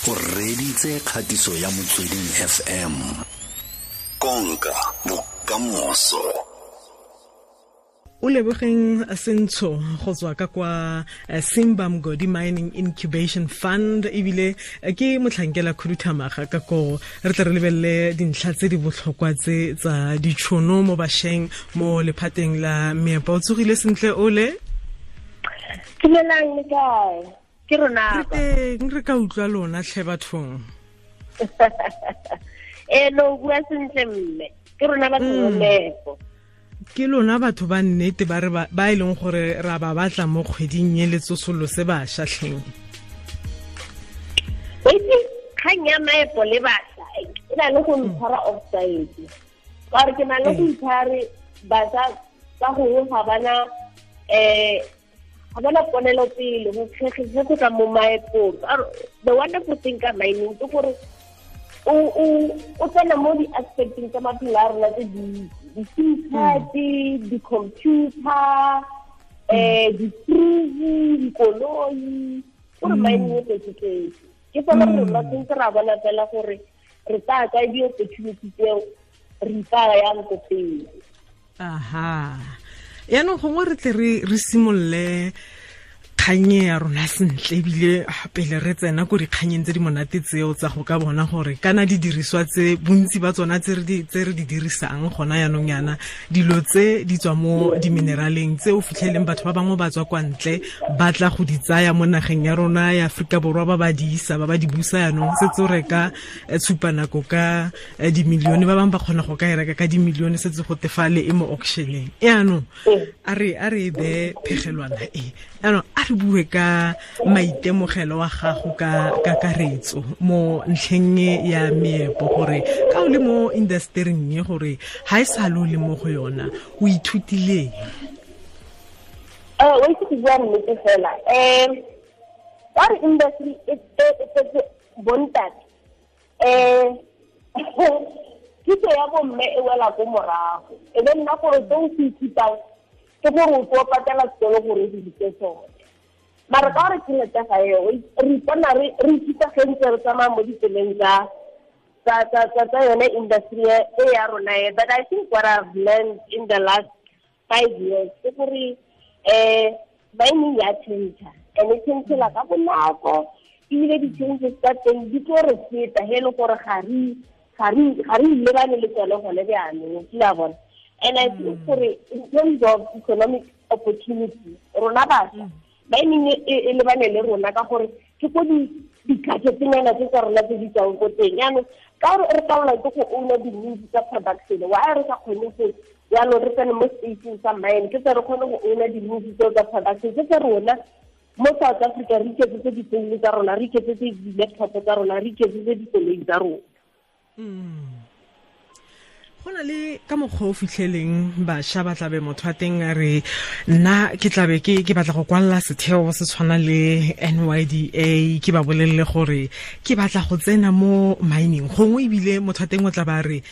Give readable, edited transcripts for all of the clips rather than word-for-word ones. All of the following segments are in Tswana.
O reditse kgatiso ya Motsweding FM. Konka bokamoso. O lebogeng Sentsho go tswa ka kwa Simba Mgodi Mining Incubation Fund, ebile ke motlhankela khuduthamaga ka ko. Re tle re lebelele dintlha tse di botlhokwa tse tsa ditšhono mo bašweng mo lephateng la meepo. O tsogile sentle, ole? Dumelang, le kae? Ke rona. Re teng, re ka utlwa lona tlhe bathong. Ee, no, bua sentle mme. Ke rona batho ba meepo. Ke lona batho ba nnete ba re ba e leng gore ra ba batla mo kgweding e le tsosolose bašwa tlheng. Itse kgang ya maepo le bašwa e na le go ntshwara offside, ka gore ke na le go ithare bašwa ka gongwe ga bana ponelopele go ge go tla mo maepong. The wonderful thing ka mining ke gore o tsena mo di-aspecteng tsa maphelo a rona tse dintsi: di-SIM card, di-computer, di-fridge, dikoloi. Gore mining e tletse-tletse, ke fela rona tshwanetse ra bona fela gore re tsaya kae di-opportunity tseo, re ipaya yang ko pele. Aha, yaanong gongwe re tle re simolole kganye ya rona sentle, ebile pele re tsena ko dikganyeng tse di monate tseo tsa go ka bona gore kana didiriswa tse bontsi ba tsona tse re di dirisang gona yaanong yana, dilo tse di tswa mo dimineraleng tse o fitlheleng batho ba bangwe ba tswa kwa ntle ba tla go di tsaya mo nageng ya rona ya Aforika Borwa, ba ba di isa, ba ba di busa. Yaanong setse o reka tshupanako ka dimilione, ba bangwe ba kgona go ka e reka ka dimilione, setse go tefale e mo auctioneng. Yaanong a re e bee phegelwana e. Yaanong a re bue ka maitemogelo wa gago ka kakaretso mo ntlheng e ya meepo, gore ka o le mo industering e, gore ga e sa le o le mo go yona, o ithutileng? O itse, go bua nnete fela, ka re industry e tletse bontate, kitso ya bomme e wela ko morago. E be nna gore se o se ithutang ke gore o tlo patela sekolo gore o diritse sone, mara ka gore tšhelete ga eo, re ipona re ithuta ge ntse re tsamaya mo ditseleng tsa yone industry e ya rona e. But I think what I've learned in the last 5 years ke gore mining ya change, and e changela ka bonako, ebile di-changes tsa teng di tlo re feta he e le gore ga re lebane le tsone gone jaanong, kile a bona. And I think gore in terms of economic opportunity, rona bašwa, mining e lebane le rona ka gore ke ko di-gadgetnyana tse tsa rona tse di tswang ko teng. Yaanong ka gore re palelwa ke go owna di-means tsa production, why re sa kgone go yaanong re tsene mo spaceng sa mine, ke tse re kgone go owna di-means tseo tsa production tse tsa rona mo South Africa, re iketsetse difounu tsa rona, re iketsetse di-laptop tsa rona, re iketsetse dikoloi tsa rona. Go na le ka mokgwa o fitlheleng bašwa ba tlabe motho a teng a re, nna ke tlabe ke batla go kwalela setheo se tshwana le NYDA, ke ba bolelele gore ke batla go tsena mo mining. Gongwe ebile motho a teng o tla ba re,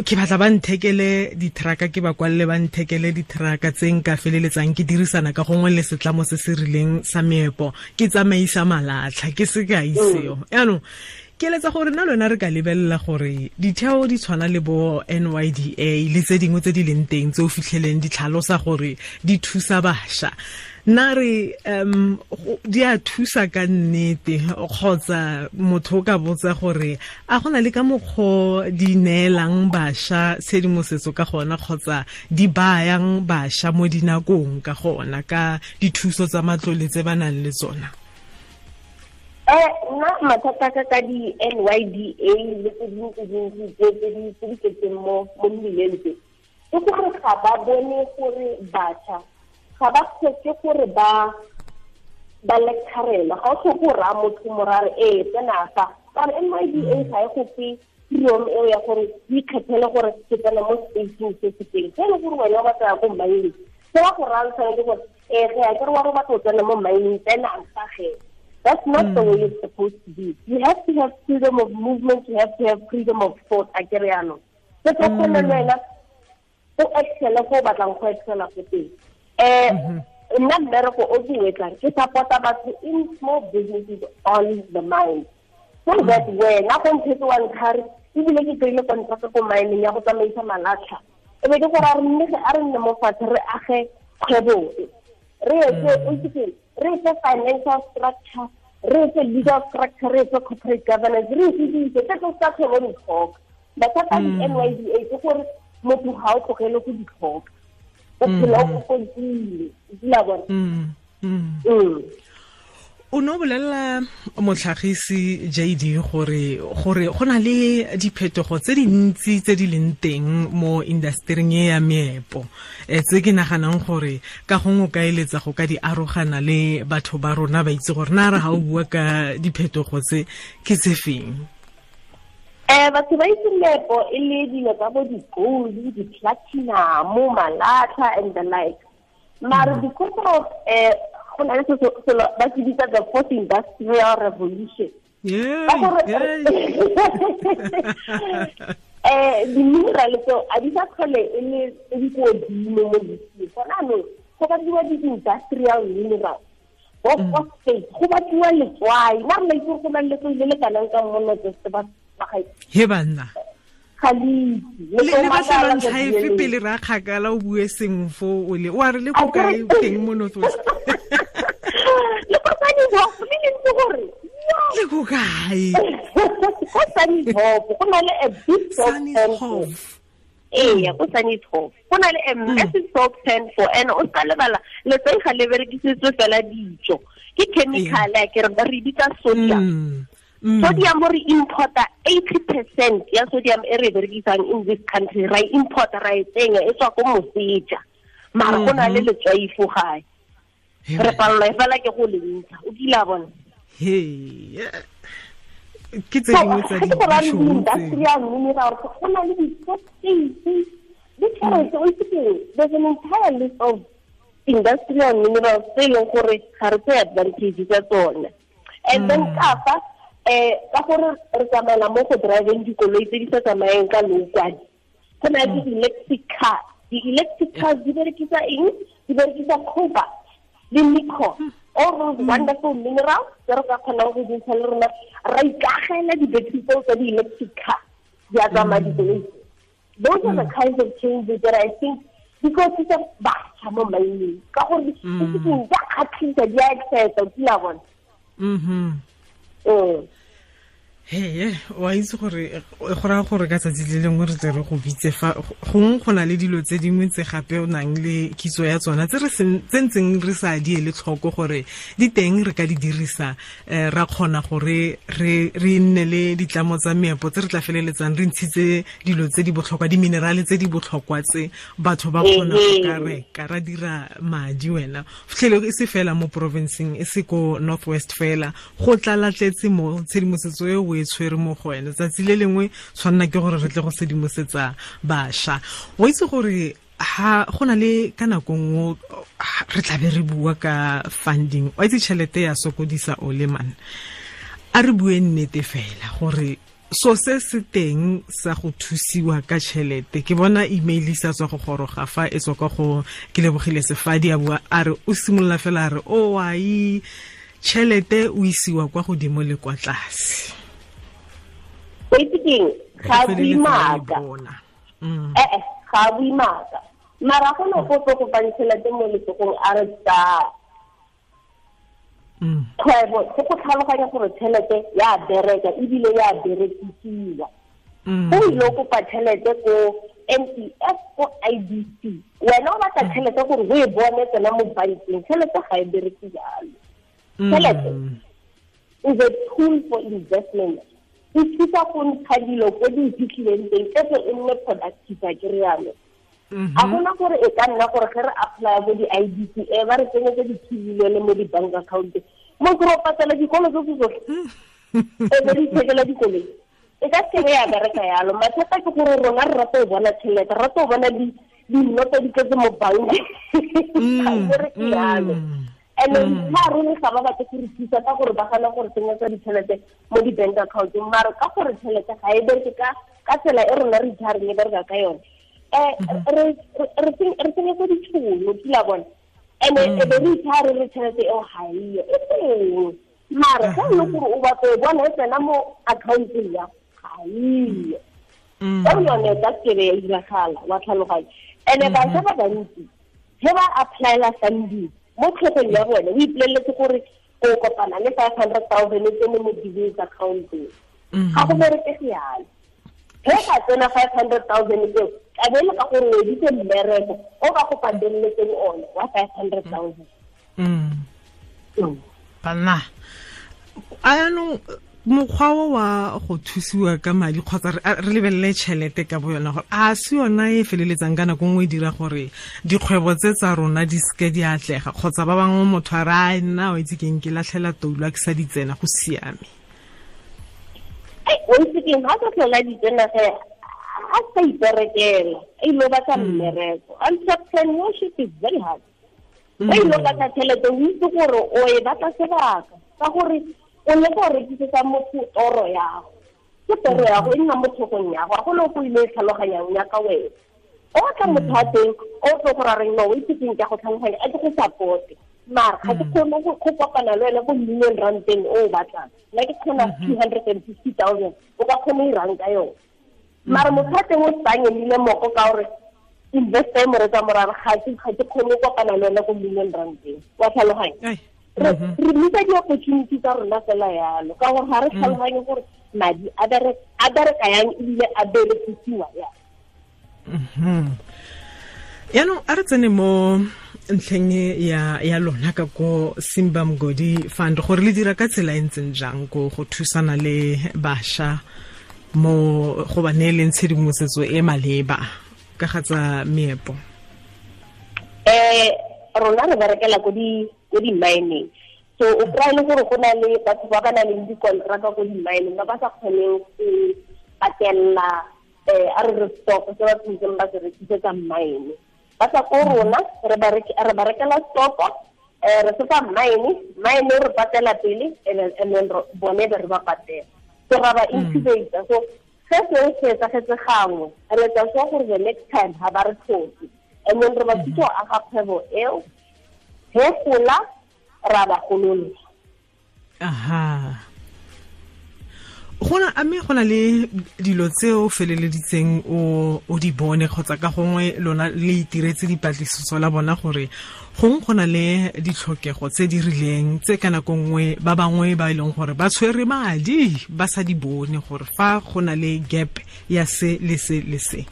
ke batla ba nthekele di-trucka, ke ba kwalele ba nthekele di-trucka tse nka feleletsang ke dirisana ka gongwe le setlamo se se rileng sa meepo, ke tsamaisa malatlha. Ke sekai seo. Yaanong ke eletsa gore nna lona re ka lebelela gore ditheo di tshwana le bo NYDA le tse dingwe tse di leng teng tse o fitlheleng di tlhalosa gore di thusa bašwa, nna re di a thusa ka nnete, kgotsa motho o ka botsa gore a go na le ka mokgwa di neelang bašwa tshedimosetso ka gona, kgotsa di bayang bašwa mo dinakong ka gona ka dithuso tsa matlole tse ba nang le tsona? Nna mathata ka di-NYDA le tse dingwe tse dintsi tse di tletseng mo mmileng tse, ke gore ga ba bone gore batjha ga ba tlhoke gore ba lecturelwa. Ga o tlhoke go raya motho morare ee tsena fa, ka gore NYDA ga e go fe freedom eo ya gore o ikgethele gore ke tsena mo spaceng se se teng se e leng gore wena o batla ya ko mining. Se ba go rayang tshwanetse gore ee ge a kere wa re o batla go tsena mo mining, tsena fa ge. That's not the way it's supposed to be. You have to have freedom of movement, you have to have freedom of thought, a kere yaanong se tlo kgone le wena o excele fo o batlang go excela ko teng. Nna mmereko o ke o etsang, ke support-a batho in small businesses on the mine. So that wena go nthetse wa ntlhare ebile ke kry-ile contract ko mineng ya go tsamaisa malatlha, e be ke gore a re nne mo fatshe re age kgwebo e, re etse o itse re etse financial structure, re etse legal structure, re etse corporate governance, re etse dilo tse tse tsa kgwebo di tlhoka. Mathata a di-NYDA ke gore motho ga o tlogele go di tlhoka, o phela o kokontile, o kile bona. O no bolelela motlhagisi JD gore go na le diphetogo tse dintsi tse di leng teng mo industering e ya meepo, tse ke naganang gore ka gongwe o ka eletsa go ka di arogana le batho ba rona ba itse gore na re ga o bua ka diphetogo tse ke tse feng. Batho ba itse meepo e le dilo tsa bo di-gold, di-platinum, malatlha and the like. Mara because of go na le selo ba se bitsa the fourth industrial revolution. Di-mineral tseo a di sa tlhole e le tse di ko godimo mo lefatsheng. Gona jaanong go batliwa di-industrial mineral, bo phosphate, go batliwa letswai. Nna re la itse gore go na le letswai le le kanang ka mo North West ba gaetsho. He banna. Ga le itse. Le batlela ntlha efe pele ra kgakala o bue sengwe fo o le o a re le ko kae teng mo North West? Le ko Sannieshof, le lentse gore le ko kae? Ko Sannieshof, go na le a big soap Sannieshof. Ee, ko Sannieshof. Go na le a massive soap pan for, and o ska lebala letswai ga le berekisitswe fela dijo. Ke chemical a ke re bitsa sodium. Sodium re importa 80% ya sodium e re berekisang in this country, ra importa ra e tsenya e tswa ko moseja. Mara go na le letswai fo gae. Re palelwa fela ke go le ntsha, o kile a bona. Ke tse dingwe tsa di-industrial mineral, go na le di-phosphate, di-tšhelete, o itse keng, there's an entire list of industrial minerals tse e leng gore ga re tseye advantage tsa tsone. And then ka fa ka gore re tsamaela mo go driveng dikoloi tse di sa tsamayeng ka lookwane, go na le di-electric car. Di-electric cars di berekisa eng? Di berekisa cobalt le nickel, all those wonderful minerals tse re ka kgonang go dintsha le rona, ra ikagela di-battery tseo tsa di-electric car di a tsamaya dikoloi. Those are the kinds of changes that I think di tlo thusa batjha mo mining, ka gore di a kgatlhisa, di a excite, o kile a bona. He, wa itse gore go raya gore ka tsatsi le lengwe re tle re go bitse fa gongwe go na le dilo tse dingwe tse gape o nang le kitso ya tsona tse re tse ntseng re sa di ele tlhoko gore di teng re ka di dirisa, ra kgona gore re nne le ditlamo tsa meepo tse re tla feleletsang re ntshitse dilo tse di botlhokwa, di-minerale tse di botlhokwa tse batho ba kgona go ka reka ra dira madi. Wena fitlhele e se fela mo provinceng, e se ko North West fela, go tlalatletse mo tshedimosetso e o e tshwere mo go wena. Tsatsi le lengwe tshwanna ke gore re tle go sedimosetsa bašwa. O itse gore ha go na le ka nako nngwe re tlabe re bua ka funding, wa itse tšhelete ya sokodisa o le man, a re bue nnete fela gore so se se teng sa go thusiwa ka tšhelete. Ke bona email e sa tswa go goroga fa e tswa kwa go ke lebogile Sefadi a bua a re o simolola fela a re o ai tšhelete o isiwa kwa godimo le kwa tlase. O itse keng, ga bue maaka. Ga bue maaka. Mara go ne go tlo go fang tšhelete mo letsogong a re tsa kgwebo, go go tlhaloganya gore tšhelete ya bereka ebile ya berekisiwa. O ile o kopa tšhelete ko NEF, ko IDC, wena o batla tšhelete gore o e bone tsena mo bankeng. Tšhelete ga e bereke jalo. Tšhelete is a tool for investment. E thusa go ntsha dilo ko di iphitlhileng teng, e tle e nne productive, a ke rialo. A gona gore e ka nna gore ge re apply bo di-IDC e ba re tsenyetse di-2 million mo di-bank account, mo ke re o patela dikolo tse tsotlhe, e be re ithekela dikoloi, e ka seke ya bereka yalo. Mathata ke gore rona re rata go bona tšhelete, re rata go bona dinoto di tletse mo bankeng, ga e bereke yalo. And then ga ruri ga ba batle go re thusa ka gore ba gana gore tsenyetsa ditšhelete mo di-bank accounteng, mara ka gore tšhelete ga e bereke ka tsela e rona re ithareng e bereka ka yone, re tsenyetsa ditšhono, kila bona. And e be re ithare re tšhelete eo ga eyo, e teng. Mara ga le gore o batla e bona e tsena mo accounteng ya ga iyo. Ka yone ka kebe ya diragala wa tlhaloganya. Ene bašwa ba bantsi ge ba applyela funding mo tlhogong ya bone o ipoleletse gore o kopana le 500,000 e tsene mo business accounteng. Ga go berekege yalo. Ge ka tsena 500,000 eo ka be le ka gore o editse mmereko o ba go pateletseng one wa 500,000. Banna anong mokgwa wa go thusiwa ka madi kgotsa re lebelele tšhelete ka bo yona gore a se yona e feleletsang ka nako nngwe e dira gore dikgwebo tse tsa rona di seke di atlega kgotsa ba bangwe motho a re a nna o itse keng ke latlhela toulo a ke sa di tsena go siame. O itse keng ga sa tlhola di tsena ge a sa iperekela a ile batla mmereko. Entrepreneurship is very hard. O ile batla tšhelete o itse gore o e batla sebaka ka gore o le go rekisetsa motho toro ya go. Ke toro ya go e nna mo tlhogong ya go, ga go le go ile e tlhaloganyang ya ka wena. O tla motho wa teng o tlo go ra reng no o itse keng ke a go tlhaloganya a ke go support-e. Mara ga ke kgone go kopana le wena ko million rand-eng o o batlang. Nna ke kgona 250,000 o ka kgona go irang ka yone. Mara motho wa teng o tsanyelile moko ka gore investor e mo retsa morare ga ke kgone go kopana le wena ko million rand-eng. Wa tlhaloganya? Re misa di-opportunity tsa rona fela yalo ka gore ga re tlhaloganye gore madi a bereka yang ebile a berekisiwa yang. Yaanong a re tsene mo ntlheng ya lona ka ko Simba Mgodi Fund gore le dira ka tsela e ntseng jang ko go thusana le bašwa mo go ba neeleng tshedimosetso e maleba ka ga tsa meepo. Rona re berekela ko di-mining. So o kry-e le gore go na le batho ba ba nang le dikontraka ko di-mining ba ba sa kgoneng go patella a re re stock se ba tshwanetseng ba se rekisetsa mine. Ba tla ko rona re ba rekela stock re se fa mine re patela pele and then bone be re ba patela. So ra ba incubate. So se seo se etsagetse gangwe re etsa sure gore the next time ga ba re tlhoke. And then re ba thusa go aga kgwebo eo he gola ra ba golola. Aha. Gona a mme gona le dilo tse o feleleditseng o di bone kgotsa ka gongwe lona le itiretse dipatlisiso la bona gore gongwe go na le ditlhokego tse di rileng tse ka nako nngwe ba bangwe ba e leng gore ba tshwere madi ba sa di bone gore fa go na le gap ya se le se le se.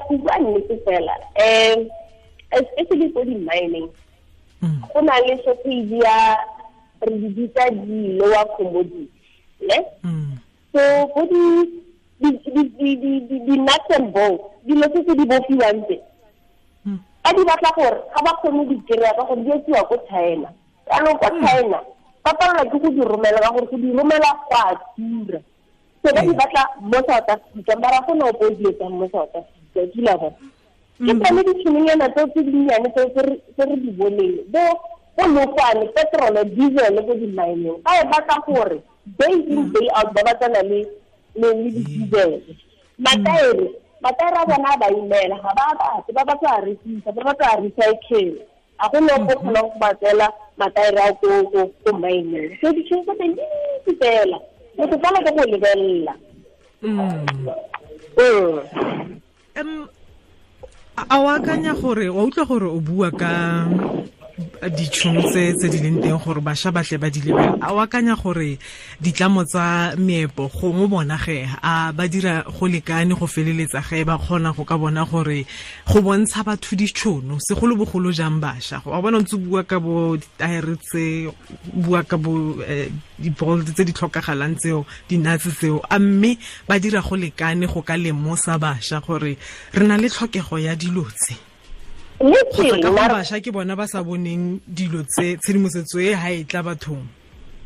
Go bua nnete fela especially ko di-mining go na le shortage ya re di bitsa di-lower commodity ne. So go di-nuts and bolts dilo tse tse di bofiwang tse ba di batla gore ga ba kgone di kry-a ka gore di etsiwa ko China. Jaanong ko China ba palelwa ke go di romela ka gore go di romela go a tura. So ba di batla mo South Africa mara go na ope o di etsang mo South Africa kila bona. Ke tsone ditšhononyana tseo tse dinnyane tseo tse re di boneng bo lookwane petrol diesel ko di-mineng ba e batla gore day in day out ba batlana le di-diesel. Mataere a bona a ba imela ga ba batle ba batla a rekisa ba batla a recycle. A go ne go kgonang go ba tseela mataere a ko mineng. So ditšhono tsa teng di dintsi fela motho fela ke go lebelela. A o akanya gore wa utlwa gore o bua ka ditšhono tse di leng teng gore bašwa ba tle ba di lebele, a o akanya gore ditlamo tsa meepo gongwe bona ge a ba dira go lekane go feleletsa ge ba kgona go ka bona gore go bontsha batho ditšhono segolobogolo jang bašwa? Wa bona ntse bua ka bo ditaere tse, bua ka bo di-bolt tse di tlhokagalang tseo, di-nuts tseo, a mme ba dira go lekane go ka lemosa bašwa gore re na le tlhokego ya dilo tse? Kgotsa ka go bašwa ke bona ba sa boneng dilo tse, tshedimosetso e ha e tla bathong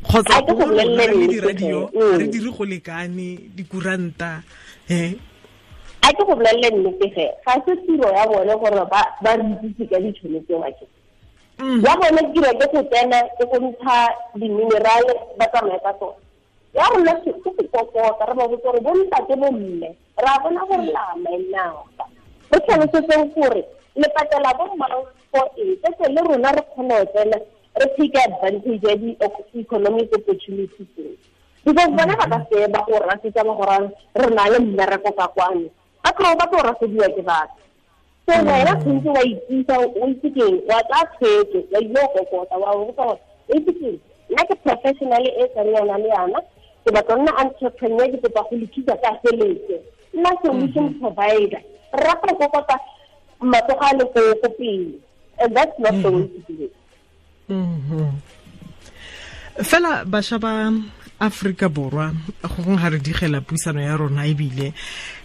kgotsa le di-radio re dire go lekane dikuranta. A ke go bolelele nnete ge ga se tiro ya bone gore ba re itsise ka ditšhono tseo ake. Ya bone tiro ke go tsena ke go ntsha di-mineral ba tsamaye ka tsone. Ya rona ke go kokota re ba botse gore bo ntate bo mme ra bona gore la mainaga re tlhalosetseng gore le patela bo mang for eng tse le rona re kgone go tsena re take advantage ya di-economic opportunities tseo, because bona ba ka se ba go rasetsa ba gore re na le mmereko ka kwano, ba tlo ba tlo rasediwa ke batho. So wena tshwanetse wa itisa, o itse keng, wa tsaya tshwetso, wa ile go kokota, wa botsa gore o itse keng, nna ke professional e tsang yana le yana, ke batla nna entrepreneur, ke kopa go le thusa ka tšhelete, nna solution provider. Re rata go kokota matsogo a le ko pele, and that's not the way to do it. Fela bašwa ba Afrika Borwa, gongwe ga re digela puisano ya rona, ebile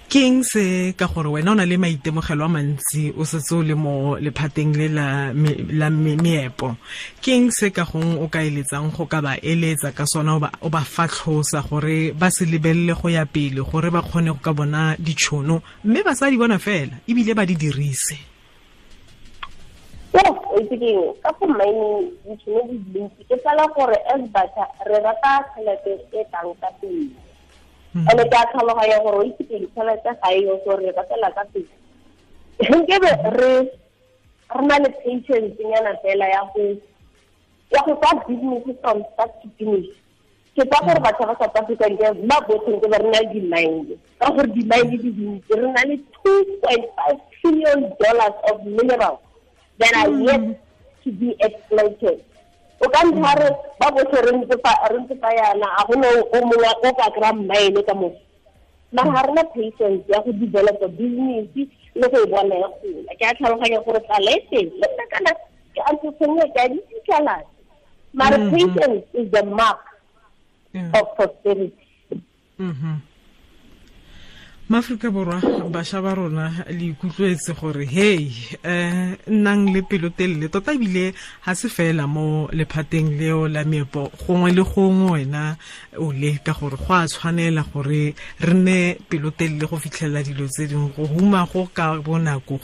ke eng se ka gore wena o na le maitemogelo a mantsi, o setse o le mo lephateng le la meepo, ke eng se ka gongwe o ka eletsang go ka ba eletsa ka sona, o ba fatlhosa gore ba se lebelele go ya pele, gore ba kgone go ka bona ditšhono mme ba sa di bona fela ebile ba di dirise? O itse keng, ka go mining ditšhono di dintsi, ke fela gore as batjha re rata tšhelete e tlang ka pele. And-e ke a tlhaloganya gore o itse keng, tšhelete ga e yo, so re ratela ka pele. Nkebe re na le patience nyana fela ya go tsaya business from start to finish. Ke tsa gore batjha ba South Africa nke ba botlhe nke ba re na le di-mine, ka gore di-mine di dintsi, re na le $2.5 trillion of minerals that are yet to be exploited. O ka ntlha re ba botlhe re ntse fa yana, a gona o mongwe o ka kry-a mine ka moso. Mara ga rena patience ya go developa business le go e bona ya gola. Ke a tlhaloganya gore tlala e teng, le nna kana ke entrepreneur, ke a di fitlhelana. Mara patience is the mark of prosperity. Maaforika Borwa, bašwa ba rona, le ikutlwetse gore hey, nnang le pelotelele tota, ebile ga se fela mo lephateng leo la meepo, gongwe le gongwe wena o le ka gore go a tshwanela gore re nne pelotelele go fitlhelela dilo tse dingwe. Go huma go ka bonako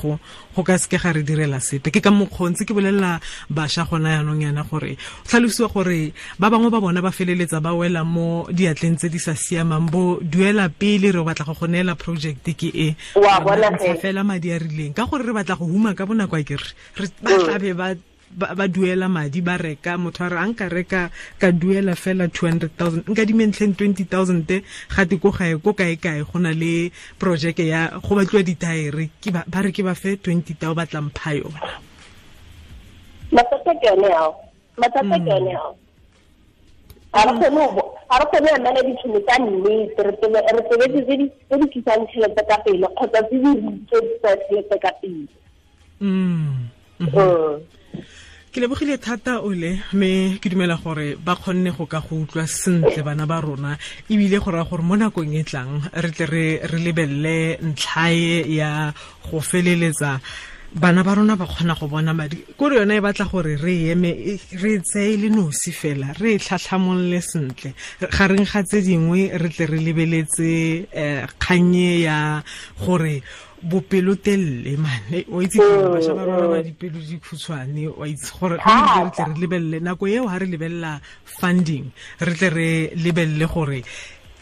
go ka seke ga re direla sepe. Ke ka mokgwa ntse ke bolelela bašwa gona yanong yana gore tlhalosiwa gore ba bangwe ba bona ba feleletsa ba wela mo diatleng tse di sa siamang, bo duela pele re batla go neela project ke e wa bona fela madi a rileng, ka gore re batla go huma ka bonako, a ke re ba tlabe ba duela madi, ba reka, motho a re a nka reka ka duela fela 200,000, nka dimentlheng 20,000, gate ko gae ko kae kae go na le projeke ya go batliwa dithaere, ke ba re ke ba fe 20,000 ba tla mpha yona. Mathata ke yone ao. Ga re kgone emela ditšhono tsa nnete, re tobetse tse di tlisang tšhelete ka pele kgotsa tse di tlisang tšhelete ka pele. Ke lebogile thata ole, mme ke dumela gore ba kgonne go ka go utlwa sentle bana ba rona, ebile go raya gore mo nakong e tlang re tle re lebelele ntlhae ya go feleletsa bana ba rona ba kgona go bona madi. Kore yona e batla gore re eme, re tseye le nosi fela, re tlhatlhamolole sentle gareng ga tse dingwe, re tle re lebeletse kgannye ya gore bopelotelele mane, o itse bašwa ba rona ba dipelo di khutshwane, wa itse gore re tle re lebelele nako eo, ha re lebelela funding, re tle re lebelele gore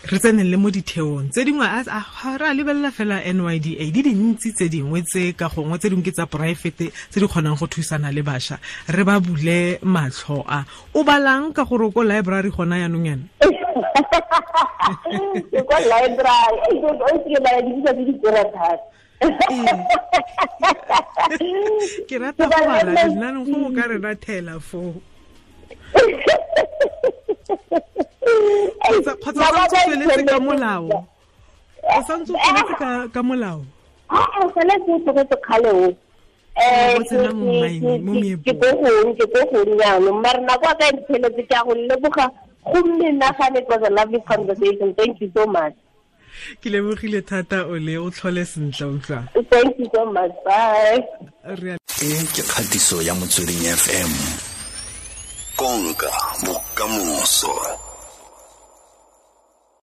re tsenelele mo ditheong tse dingwe. Ga re a lebelela fela NYDA, di dintsi tse dingwe tse ka gongwe tse dingwe ke tsa poraefete tse di kgonang go thusana le bašwa, re ba bule matlho a. O balang ka gore o ko library gona yanong yana? Ke kwa library, o ke bala dibuka tse di tura thata. Ke rata go bala, nna go ka re rathela foo. Kgotsa o santse o tsweletse ka molao? O santse o tsweletse ka molao? Aa, sale ke o tlogetse kgale o. Ke ko gong jaanong, mare nako a ka e mpheletse, ke a go leboga go menagane. It was a lovely conversation, thank you so much. Ke lebogile thata ole, o tlhole sentle, utlwa. Thank you so much, bye. E ke kgatiso ya Motsweding FM, konka bokamoso.